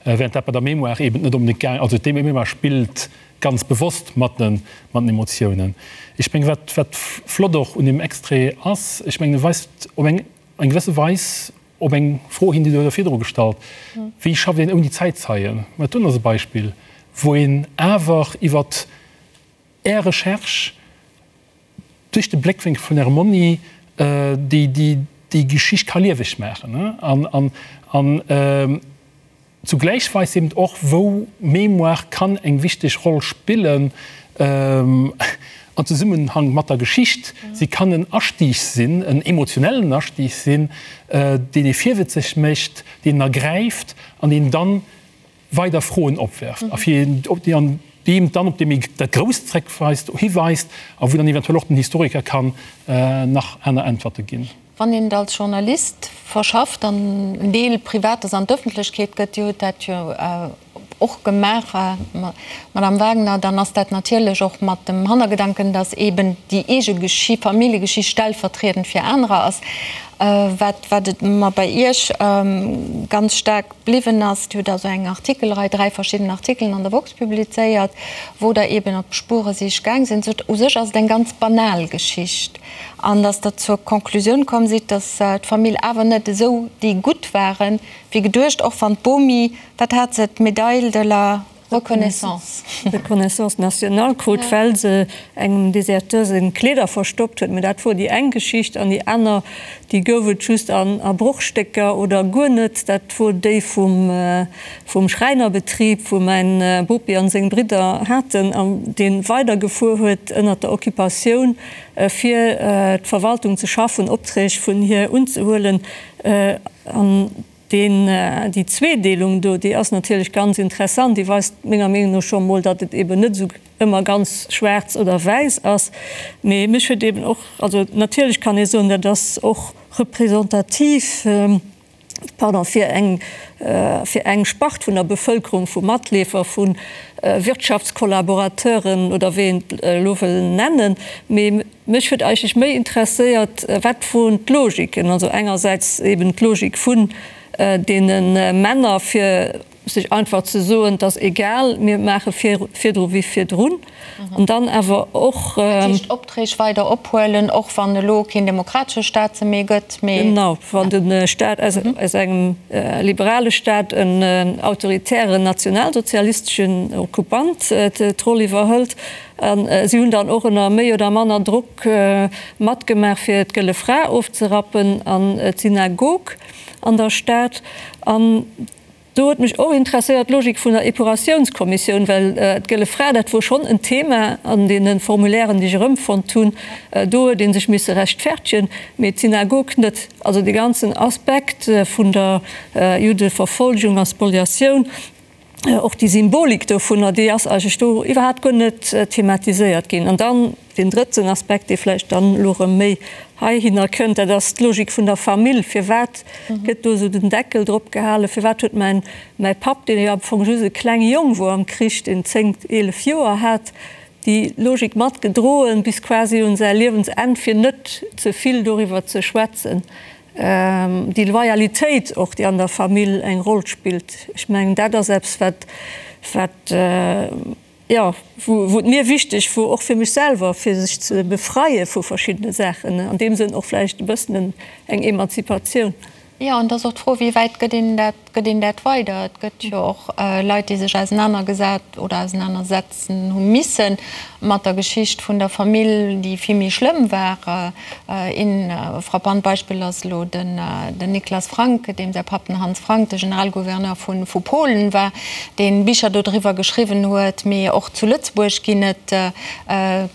während dat bei der Mémoire eben net onbedéngt gaang, also d'Mémoire spillt ganz bewosst mat den Emotiounen. Ech mengen, wat, wat flott och un deem Extrait ass, ech mengen, e weist op eng eng gewësse Weis op eng Fro hin, déi Der jo virdru gestallt, Wéi schafft een ouni Zäitzeien? Mä dat doen ass e Beispill, wou een awer iwwert Är Recherche, duerch de Bléckwénkel vun Ärem Monni déi Geschicht ka lieweg maachen an zugläich weist eben och, wou Mémoire kann eng wichteg Roll spillen an Zesummenhang mat der Geschicht. Si kann en Astieg sinn, en emotionellen Astieg sinn, deen ee virwëtzeg mécht, deen en ergräift an deen dann weider Froen opwerft a fir an deem dann op dee méi dat Grousst zréckweist, hiweist a wou dann eventuell och den Historiker kann nach aner Äntwerte ginn. Wann een et als Journalist verschafft an en Deel Privates an d'Ëffentlechkeet gëtt, Dir hutt dat jo och gemaach, Madame Wagener, dann ass dat natierlech och mat dem Hannergedanken, datt eeben déi eege Familljegeschicht stellvertriedend fir anerer ass. Wat wat et mer bei Iech ganz staark Bliwwen ass. Dir hutt also eng Artikelrei, 3 verschidden Artikelen an der woxx publizéiert, wou Der eben op Spueresich gaang sinn. Sot, u sech ass et eng ganz banal Geschicht. An datt Der zur Conclusioun komm sidd, datt d'Famill awer net esou déi Gutt waren, wéi geduecht, och wann d'Bomi, wat hat se, d'Medaille de la. Reconnaissance. Reconnaissance nationale krut, well se engem Deserteur seng Kleeder verstoppt huet. Mä dat wor déi eng Geschicht. An déi aner, déi gouf et just a Brochstécker oder guer net, dat wor déi vum, vum Schräinerbetrib, wou mäin Bopi an seng Bridder haten, an dee weidergefuer huet ënnert der Occupatioun, fir d'Verwaltung ze schaffen, Opträg vun hir unzehuelen. An deen, déi Zweedeelung do, déi ass natierlech ganz interessant. Déi weist menger Meenung no scho mol, datt et eben net esou ëmmer ganz schwaarz oder wäiss ass. Mee mech huet eben och, also natierlech kann ee soen, dat ass och representativ, pardon, fir eng, fir eng Spart vun der Bevëlkerung, vu Matleefer, vu Wirtschaftskollaborateuren oder wéi een et elo wëll nennen. Mee mech huet eigentlech méi interesséiert, wat woren d'Logiken? Also engersäits eben d'Logik vun deene Männer, fir sech einfach ze soen, et ass egal, mir maache virdru wéi virdrun, an dann awer och. Dat heescht, Opträg weider ophuelen, och wann elo keen demokratesche Staat se méi gëtt, mee. Genau, wann de Staat aus engem liberale Staat en autoritären nationalsozialisteschen Okkupant d'Roll iwwerhëlt. A si hunn dann och ënner méi oder manner Drock matgemaach, fir d'Gëlle Fra ofzerappen an d'Synagog an der Stad. An do huet mech och interesséiert d'Logik vun der Epuratiounskommissioun, well d'Gëlle Fra, dat wor schonn en Thema an deene Formulairen, déi ech erëmfonnt hunn. Do huet ee sech misse rechtfertegen, mee d'Synagog net. Also dee ganzen Aspekt vun der Juddeverfolgung a Spoliatioun, och déi Symbolik dovunner, déi ass eigentlech do iwwerhaapt guer net thematiséiert ginn. An dann deen drëtten Aspekt, dee vläicht dann elo erëm méi heihinner kënnt, dat ass d'Logik vun der Famill. Firwat gëtt do esou den Deckel drop gehalen? Firwat huet mäin, mäi Papp, deen jo am Fong just e klenge Jong wor am Krich, deen 10, 11 Joer hat, déi Logik matgedroen bis quasi un säi Liewensenn, fir net ze vill doriwwer ze schwätzen? Déi Loyalitéit och, déi an der Famill eng Roll spillt, ech mengen, dat ass eppes, wat, wat, jo, wou et mir wichteg wor, och fir mech selwer, fir sech ze befreie vu verschiddene Saachen, an deem Sënn och vläicht e bëssen eng Emanzipatioun. Jo, an et ass och d'Fro, wéi wäit gëtt een dat, gëtt een dat weider? Et gëtt jo och Leit, déi sech ausenanergesat oder ausenanersetzen hu misse mat der Geschicht vun der Famill, déi vill méi schlëmm war. Een frappant Beispill ass elo den Niklas Frank, deem säi Papp den Hans Frank, de Generalgouverneur vu Polen war, dee Bicher dodriwwer geschriwwen huet. Mee och zu Lëtzebuerg ginn et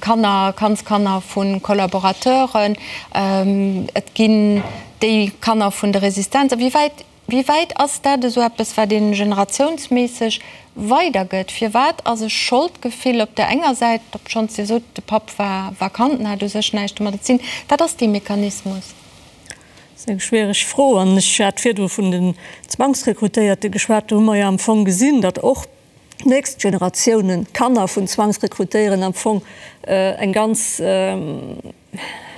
Kanner, Kandskanner vu Kollaborateuren. Et ginn déi Kanner vun de Resistenz. A wéi wäit Wéi wäit ass dat esou eppes, wat ee generatiounsméisseg weidergëtt? Firwat ass e Scholdgefill op der enger Säit, obschonns Dir sot, de Papp war vakant an hat u sech näischt domadder ze dinn? Wat ass dee Mechanismus? Dat ass eng schwiereg Fro. An ech hat virdru vun den Zwangsrekrutéierte geschwat. Do hu mer jo am Fong gesinn, datt och d'nächst Generatiounen, d'Kanner vun Zwangsrekrutéieren am Fong eng ganz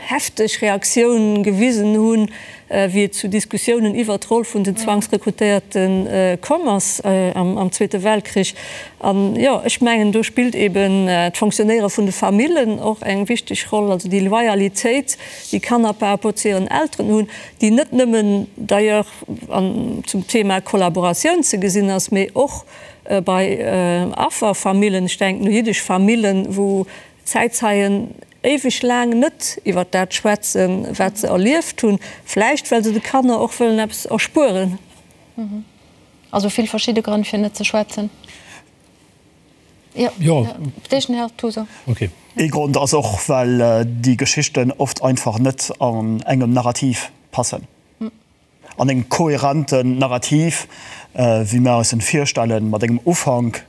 hefteg Reaktioun gewisen hunn, wéi et zu Diskussiounen iwwert d'Roll vun den Zwangsrekrutéierte komm ass am Zweete Weltkrich. An jo, ech mengen, do spillt eben d'Fonctionnéiere vun de Famillen och eng wichteg Roll, also déi Loyalitéit, déi Kanner par rapport zu hiren Elteren hunn, déi net nëmmen d'ailleurs zum Thema Kollaboratioun ze gesinn ass, mee och bei Afferfamillen, ech denken u jiddesch Famillen, wou Zäitzeien éiweg laang net iwwer dat schwätzen, wat se erlieft hunn, vläicht well se de Kanner och wëllen eppes erspueren. Also vill verschidde Grënn fir net ze schwätzen. Jo, Dechen, Här Toso. Ee Grond ass och, well déi Geschichten oft einfach net an engem Narrativ passen. An engem kohärenten Narrativ, wéi mir eis en virstellen, mat engem Ufank,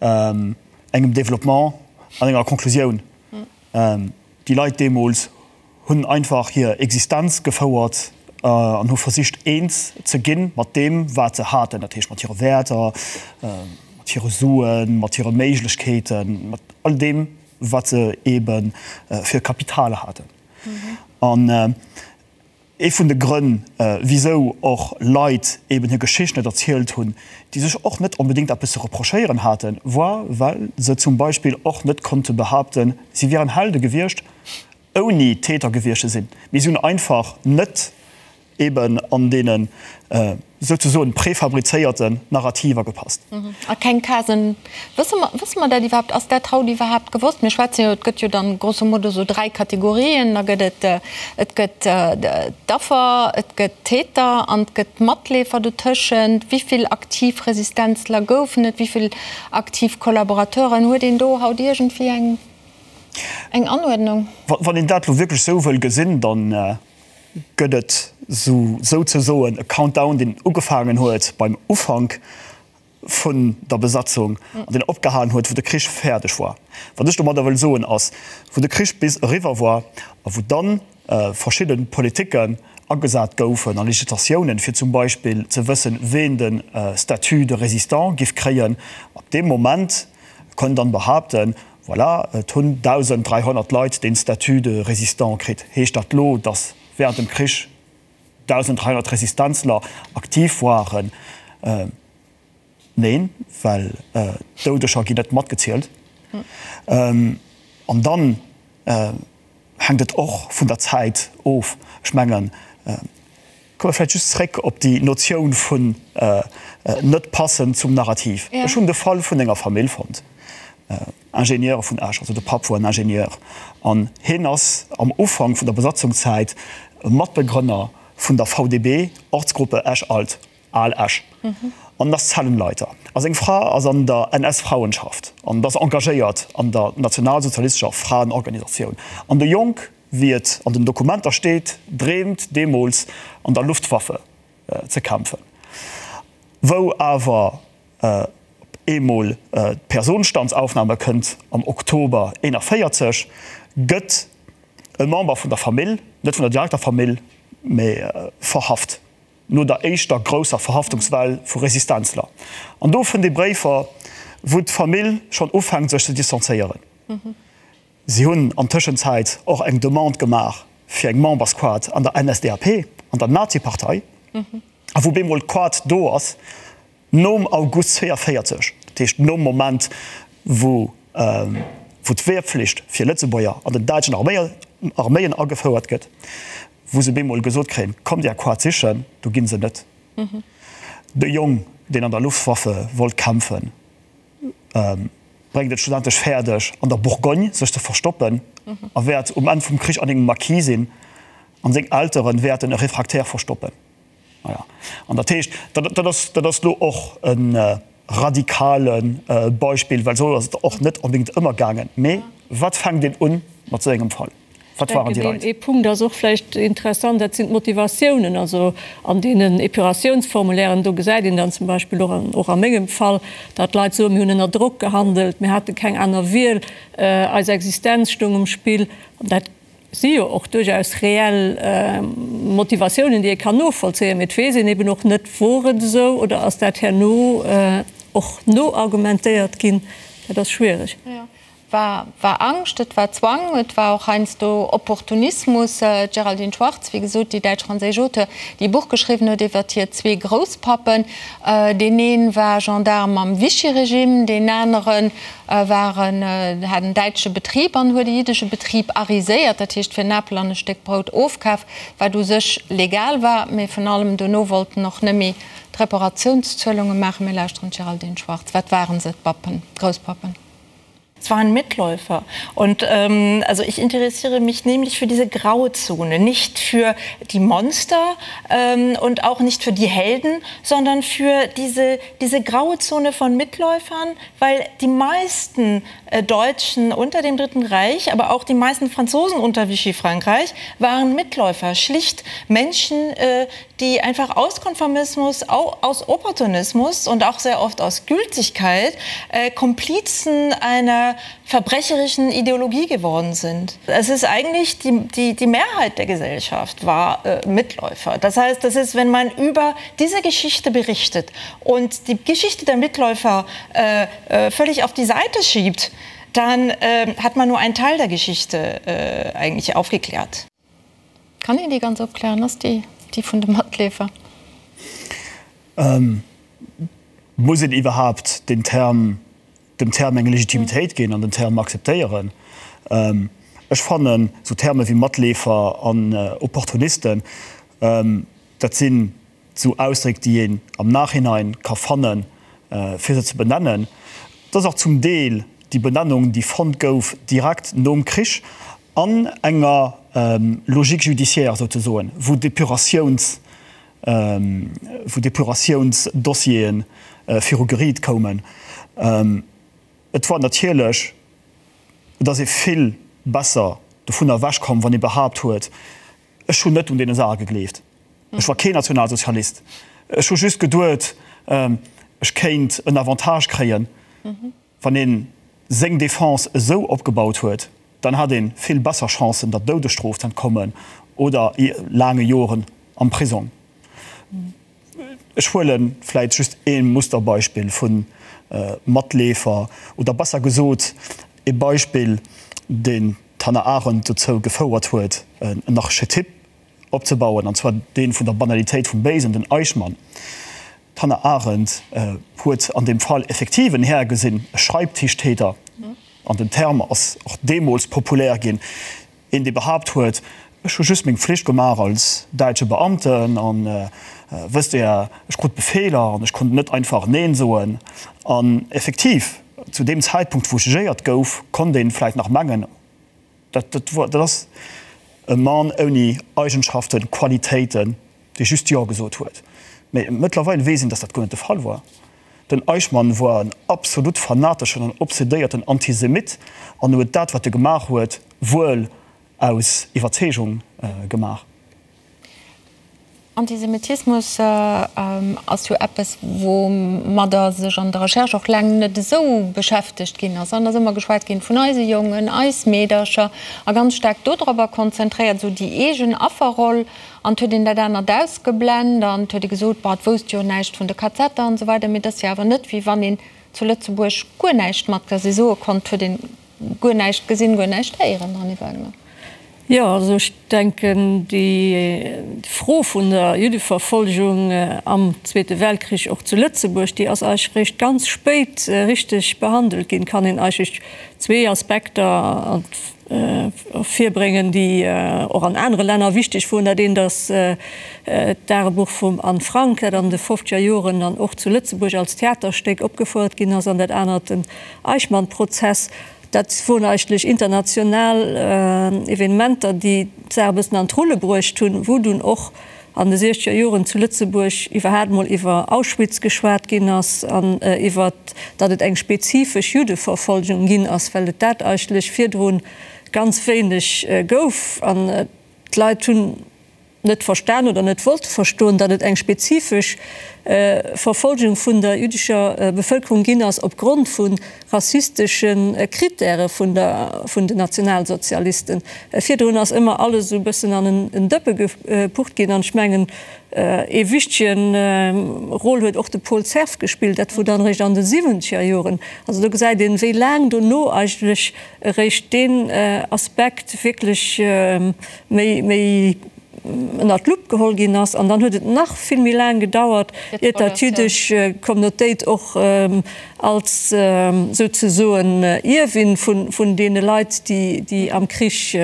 engem Développement an enger Konklusioun. Déi Leit deemools hunn einfach hir Existenz gefouert an hu versicht eens ze ginn mat deem wat se haten, dat heescht mat hire Wäerter, mat hire Suen, mat hire Méiglechkeeten, mat all deem wat se eebe fir Kapital haten. An Ee vun de Grënn, wisou och Leit eben hir Geschicht net erzielt hunn, déi sech och net onbedéngt eppes ze reprochéieren haten, war, well se zum Beispill och net konnte behaapten, si wieren Helde gewiescht, ouni Täter gewiescht ze sinn. Mee si hunn einfach net. eben an deenen souzesoen prefabrizéierten Narrativer gepasst. A keng Casen. Wësse mer, wësse mer dat iwwerhaapt? Ass dat haut iwwerhaapt gewosst? Mir schwätzen jo, et gëtt jo dann grosso modo esou 3 Kategorien. Da gëtt et, et gëtt d'Affer, et gëtt d'Täter an et gëtt d'Matleefer dotëschent. Wéi vill aktiv Resistenzler goufen et? Wéi vill aktiv Kollaborateuren? Huet een do haut iergendwéi eng, eng Anuerdnung? Wann een dat elo wierklech esou wëll gesinn, dann gëtt et souzesoen e Countdown, deen ugefaangen huet beim Ufank vun der Besatzung an deen opgehalen huet, wou de Krich fäerdeg war. Wat ech domadder wëll soen ass, wou de Krich bis eriwwer war a wou dann verschidde Politiken agesat goufen a Legislatiounen, fir zum Beispill ze wëssen, ween de Statut de résistant giff kréien, ab deem Moment konnt dann behaapten, Voilà, et hunn 1.300 Leit deen Statut de résistant kritt. Heescht dat lo, datt während dem Krich 1.300 Resistenzler aktiv waren? Neen, well d'Doudeger ginn net matgezielt. An dann hänkt et och vun der Zäit of. Ech mengen, Komme vläicht just zréck op déi Notioun vun net passen zum Narrativ. Ech hunn de Fall vun enger Famill fonnt, Ingenieure vun Esch, also de Papp wor en Ingenieur an hien ass am Ufank vun der Besatzungszäit Matbegrënner vun der VDB, Ortsgruppe Esch-Alt, Al Esch, an ass Zellenleiter. A seng Fra ass an der NS-Frauenschaft an ass engagéiert an der nationalsozialistescher Fraenorganisatioun. An de Jong Wéi et an den Dokumenter steet, dreemt deemools an der Luftwaffe ze kämpfen. Wou awer op eemol d'Personstandsaufnahme kënnt am Oktober 41, gëtt e Member vun der Famill, net vun der direkter Famill, mä verhaft, no der éischter grousser Verhaftungswell vu Resistenzler. An do fënnt ee Bréifer, wou d'Famill schonn ufänkt sech ze distanzéieren. Si hunn an Tëschenzäit och eng Demande gemaach fir eng Membersquote an der NSDAP, an der Nazipartei, a wou bemol d'Quote do ass, nom August 42, dat heescht nom Moment, wou d'Wehrpflicht fir Lëtzebuerger an den däitschen Arméien agefouert gëtt, wou se bemol gesot kréien, Kommt Är Quote sichen, do gi se net. De Jong, deen an der Luftwaffe wollt kämpfen, bréngt et schlussendlech fäerdeg, an der Bourgogne sech ze verstoppen a wäert um Enn vum Krich an engem Maquis sinn an seng Eltere wäerten e Refractaire verstoppen. Voilà. An dat heescht, dat ass, dat ass elo och e radikale Beispill, well esou ass et och net onbedéngt ëmmer gaangen. Mee wat fänkt een un mat esou engem Fall? Wat waren déi Leit? Ee Punkt ass och vläicht interessant, dat sinn d'Motivatiounen. Also an deenen Epuratiounsformulairen, do gesäit een dann zum Beispill och, och a mengem Fall, datt d'Leit soen, mir hunn ënner Drock gehandelt, mir hate keng aner Wiel, eis Existenz stoung um Spill. An dat si jo och duerchaus reell Motivatiounen, déi ee kann novollzéien. Mee et weess een eben och net, Wor et esou oder ass dat herno och noargumentéiert ginn? Dat ass schwiereg. War war Angscht, et war Zwang, et war och heiansdo Opportunismus. D'Géraldine Schwarz, wéi gesot, déi däitsch-franséisch Auteur, déi e Buch geschriwwen huet iwwert hir zwee Grousspappen, deen ee war Gendarme am Vichy-Regime, deen anere war en, hat en däitsche Betrib an huet e jiddesche Betrib ariséiert, dat heescht fir en Apel an e Stéck Brout ofkaf, wat u sech legal war, mee vun allem dono wollt en och net méi d'Reparatiounszuelunge maachen. Mir lauschteren d'Géraldine Schwarz. Wat waren se, d'Pappen, d'Grousspappen? Es waren Mitläufer. Und ähm, also ich interessiere mich nämlich für diese Grauzone, nicht für die Monster ähm, und auch nicht für die Helden, sondern für diese, diese graue Zone von Mitläufern, weil die meisten äh, Deutschen unter dem Dritten Reich, aber auch die meisten Franzosen unter Vichy Frankreich waren Mitläufer, schlicht Menschen, äh, die einfach aus Konformismus, aus Opportunismus und auch sehr oft aus Gültigkeit äh, Komplizen einer verbrecherischen Ideologie geworden sind. Es ist eigentlich die, die, die Mehrheit der Gesellschaft war äh, Mitläufer. Das heißt, das ist, wenn man über diese Geschichte berichtet und die Geschichte der Mitläufer äh, äh, völlig auf die Seite schiebt, dann äh, hat man nur einen Teil der Geschichte äh, eigentlich aufgeklärt. Kann een déi ganz opklären? Ass déi déi vun de Matleefer? Muss een iwwerhaapt den Term, dem Term eng Legitimitéit ginn an den Term akzeptéieren? Ech fannen esou Terme wéi Matleefer an Opportunisten. Dat sinn esou Ausdréck, déi een am Nachhinein ka fannen, fir se ze benennen. Et ass och zum Deel déi Benennung, déi fonnt gouf direkt nom Krich an enger Logique judiciaire souzesoen, wou Depuratiouns, wou Depuratiounsdossiere viru Geriit koumen. Et war natierlech, et ass ee vill besser dovunner ewechkomm, wann ee behaapt huet, Ech hunn net un deene Saache gegleeft. Ech war keen Nationalsozialist. Ech hu just geduet, ech kéint en Avantage kréien. Wann ee seng Defense esou opgebaut huet, dann hat ee vill besser Chancen, der Doudesstrof z'entkommen oder laange Joren am Prisong. Ech huele vläit just ee Musterbeispill vu Matleefer, oder besser gesot ee Beispill, deen d'Hannah Arendt dozou gefouert huet, en Archetyp opzebauen, an zwar dee vun der Banalitéit vum Béisen, den Eichmann. D'Hannah Arendt huet an deem Fall effektiv en Här gesinn, e Schreibtischtäter, an den Term ass och deemools populär ginn, Een, dee behaapt huet, Ech hu just meng Pflicht gemaach als däitsche Beamten an, wësst Der, ech krut Befeeler an ech konnt net einfach Neen soen. An effektiv, zu deem Zäitpunkt, wou jugéiert gouf, konnt ee vläicht nach mengen, dat dat ass e Mann ouni Eigenschaften, Qualitéiten, dee just Jo gesot huet. Mee mëttlerweil weess een, datt dat guer net de Fall war. Den Eichmann woar en absolut fanateschen an obsedéierten Antisemit an huet dat, wat e gemaach huet, wuel aus Iwwerzeegung gemaach. Antisemitismus ass jo eppes, woumadder sech an der Recherche och laang net esou beschäftegt ginn ass. An ass ëmmer geschwat ginn vun eise Jongen, eis Meedercher a ganz staark dodropper konzentréiert, esou déi eegen Afferroll. An et huet een dat anert ausgeblend an et huet ee gesot, Bah, et wousst jo näischt vun de KZer an esou weider. Mee et ass jo awer net, wéi wann een zu Lëtzebuerg guer näischt mat dass ee soe konnt, et huet een guer näischt gesinn, guer näischt héieren, Anny Wagner. Jo, also ech denken, déi Fro vun der Juddeverfolgung am Zweete Weltkrich och zu Lëtzebuerg, déi ass eigentlech réischt ganz spéit richteg behandelt ginn. Kann een eigentlech zwee Aspekter ervirbréngen, déi och an anere Länner wichteg woren. Dat eent ass d'Dagebuch vum Anne Frank, dat an de fofzeger Joren dann och zu Lëtzebuerg als Theaterstéck opgefouert ginn ass, an dat anert den Eichmann-Prozess. Dat woren eigentlech international Evenementer, déi d'Saach e bëssen an d'Rulle bruecht hunn, wou dunn och an de siechzeger Joren zu Lëtzebuerg iwwerhaapt mol iwwer Auschwitz geschwat ginn ass an iwwer, datt et eng spezifesch Juddeverfolgung ginn ass, well et dat eigentlech virdru ganz wéineg gouf an d'Leit hunn net verstan oder net wollte verstoen, datt et eng spezifesch Verfolgung vun der jüddescher Bevëlkerung ginn ass opgrond vu rassistesche Krittäre vun der vun den Nationalsozialisten. Virdrun ass ëmmer alles esou e bëssen an en Dëppe gepucht ginn an ech mengen ee wichtege Rôle huet och de Paul Cerf gespillt, dat wor dann eréischt an de siwwenzeger Joren. Also do gesäit een, wéi laang dono eigentlech eréischt deen Aspekt wierklech méi méi ënnert d'Lupp geholl ginn ass. An dann huet et nach vill méi laang gedauert, iert datt d'jüddesch Communautéit och als souzesoen Ierwin vun deene Leit, déi am Krich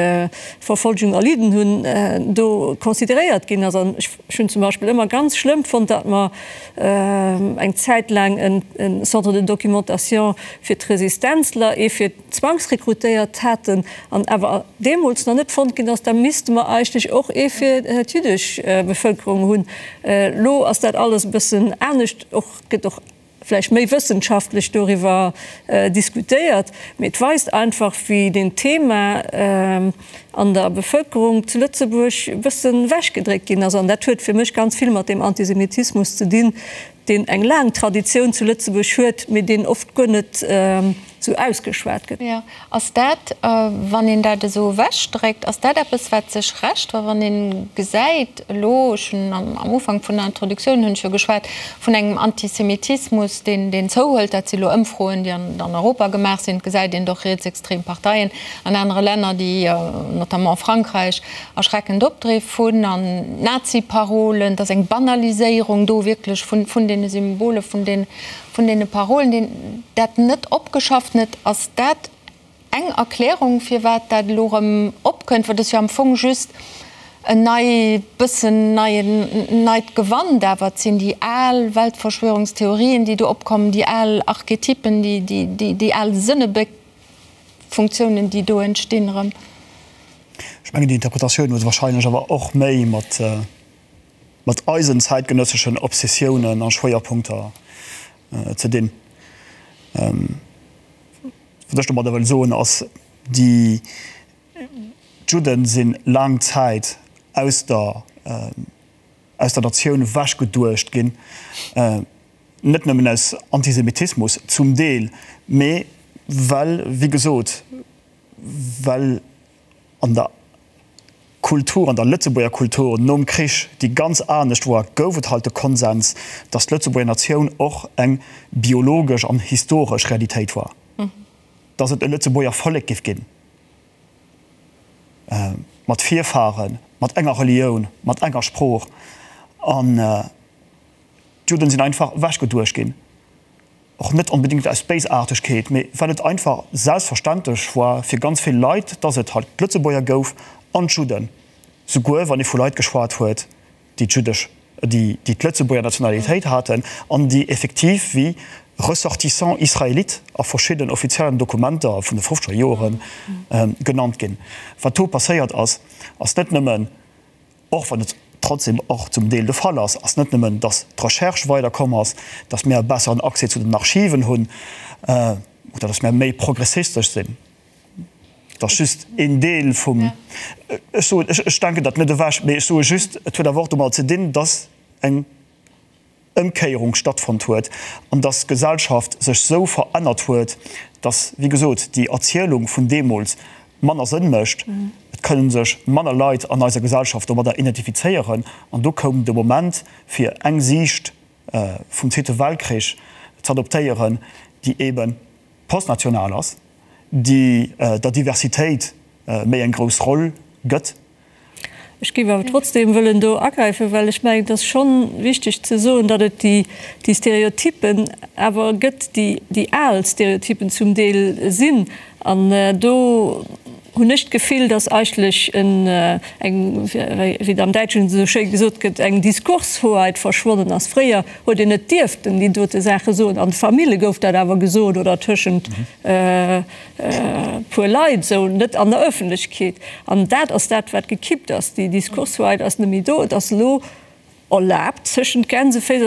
Verfolgung erlidden hunn, do consideréiert ginn ass. An ech hunn zum Beispill ëmmer ganz schlëmm fonnt, datt mer eng Zäit laang e Centre de documentation fir d'Resistenzler, ee fir zwangsrekrutéiert haten an awer deemools nach net fonnt ginn ass, da misste mer eigentlech och ee fir d'jüddesch Bevëlkerung hunn. Elo ass dat alles e bëssen anescht, och gëtt och vläicht méi wëssenschaftlech doriwwer diskutéiert, mee et weist einfach, wéi deen Thema an der Bevëlkerung zu Lëtzebuerg e bëssen ewechgedréckt ginn ass. An dat huet fir mech ganz vill mat deem Antisemitismus ze dinn, deen eng laang Traditioun zu Lëtzebuerg huet, mee deen oft guer net esou ausgeschwat gëtt. Jo. Ass dat, wann een dat esou ewechdréckt, ass dat eppes, wat sech rächt? Well wann ee gesäit elo, ech hunn am Ufank vun der Introduktioun hunn ech jo geschwat vun engem Antisemitismus, deen, deen zouhëlt, dat si elo Ëmfroen, déi an, an Europa gemaach sinn, et gesäit een doch rietsextrem Parteien an anere Länner, déi, notamment Frankräich, erschreckend Opdriff hunn an Nazi-Parolen, et ass eng Banaliséierung do wierklech vun, vun deene Symbole, vun den, vun deene Parolen, deen dat net opgeschafft net. Ass dat eng Erklärung, firwat dat elo erëm opkënnt? Well et ass jo am Fong just. En nei, bëssen neien, neit Gewand, awer et sinn déi al Weltverschwörungstheorien, déi do opkommen, déi al Archetypen, déi, déi, déi, déi al Sënnebléckfunktiounen, déi do entstinn erëm. Ech mengen, déi Interpretatioun huet wahrscheinlech awer och méi mat, mat eisen zäitgenësseschen Obsessiounen a Schwéierpunkter ze dinn. Wat ech domadder wëll soen, ass, déi, D'Judden si laang Zäit aus der aus der Natioun ewechgeduecht ginn, net nëmmen aus Antisemitismus zum Deel, mee well, wéi gesot, well an der Kultur, an der Lëtzebuerger Kultur nom Krich, déi ganz anescht war, gouf et halt de Konsens, datt d'Lëtzebuerger Natioun och eng biologesch an historesch Realitéit war. Datt et e Lëtzebuerger Vollek giff ginn, mat Virfahren, mat enger Relioun, mat enger Sprooch. An d'Judden sinn einfach ewechgeduecht ginn, och net onbedéngt aus Béisaartegkeet, mee well et einfach selbstverständlech war fir ganz vill Leit, datt et halt d'Lëtzebuerger gouf an d'Judden, souguer wann ee vu Leit geschwat huet, déi d'jüddesch, déi déi d'Lëtzebuerger Nationalitéit haten an déi effektiv wéi Ressortissants israélites a verschidden offiziellen Dokumenter vun de fofzeger Joere genannt ginn. Wat do passéiert ass, ass net nëmmen, och wann et trotzdem och zum Deel de Fall ass, ass net nëmmen, datt d'Recherche weiderkomm ass, datt mir e besseren Accès zu den Archiven hunn oder datt mir méi progressistesch sinn. Et ass just een Deel vum, ech soen, ech denken dat net ewech, mee ech soe just, et huet awer och domadder ze dinn, dass eng Ëmkéierung stattfonnt huet an dass d'Gesellschaft sech esou verännert huet, dass, wéi gesot, déi Erzielung vun deemools manner Sënn mécht. Et kënne sech manner Leit an eiser Gesellschaft domadder identifizéieren an do koum de Moment, fir eng Siicht vum Zweete Weltkrich z'adoptéieren, déi eebe postnational ass, déi der Diversitéit méi eng grouss Roll gëtt. Ech géif awer trotzdem wëllen do agräifen, well ech mengen, et ass schonn wichteg ze soen, datt et déi Stereotypen awer gëtt, déi al Stereotypen zum Deel sinn. An do hunn ech d'Gefill, datt eigentlech eng, wéi et am Däitschen esou schéi gesot gëtt, eng Diskurshoheit verschwonnen ass. Fréier huet een net dierften déi dote Saache soen. An de Famille gouf dat awer gesot oder tëschent e puer Leit esou, net an der Ëffentlechkeet. An dat ass dat, wat gekippt ass. Déi Diskurshoheit ass net méi do. Et ass elo erlaabt, tëschent Gänseféiss.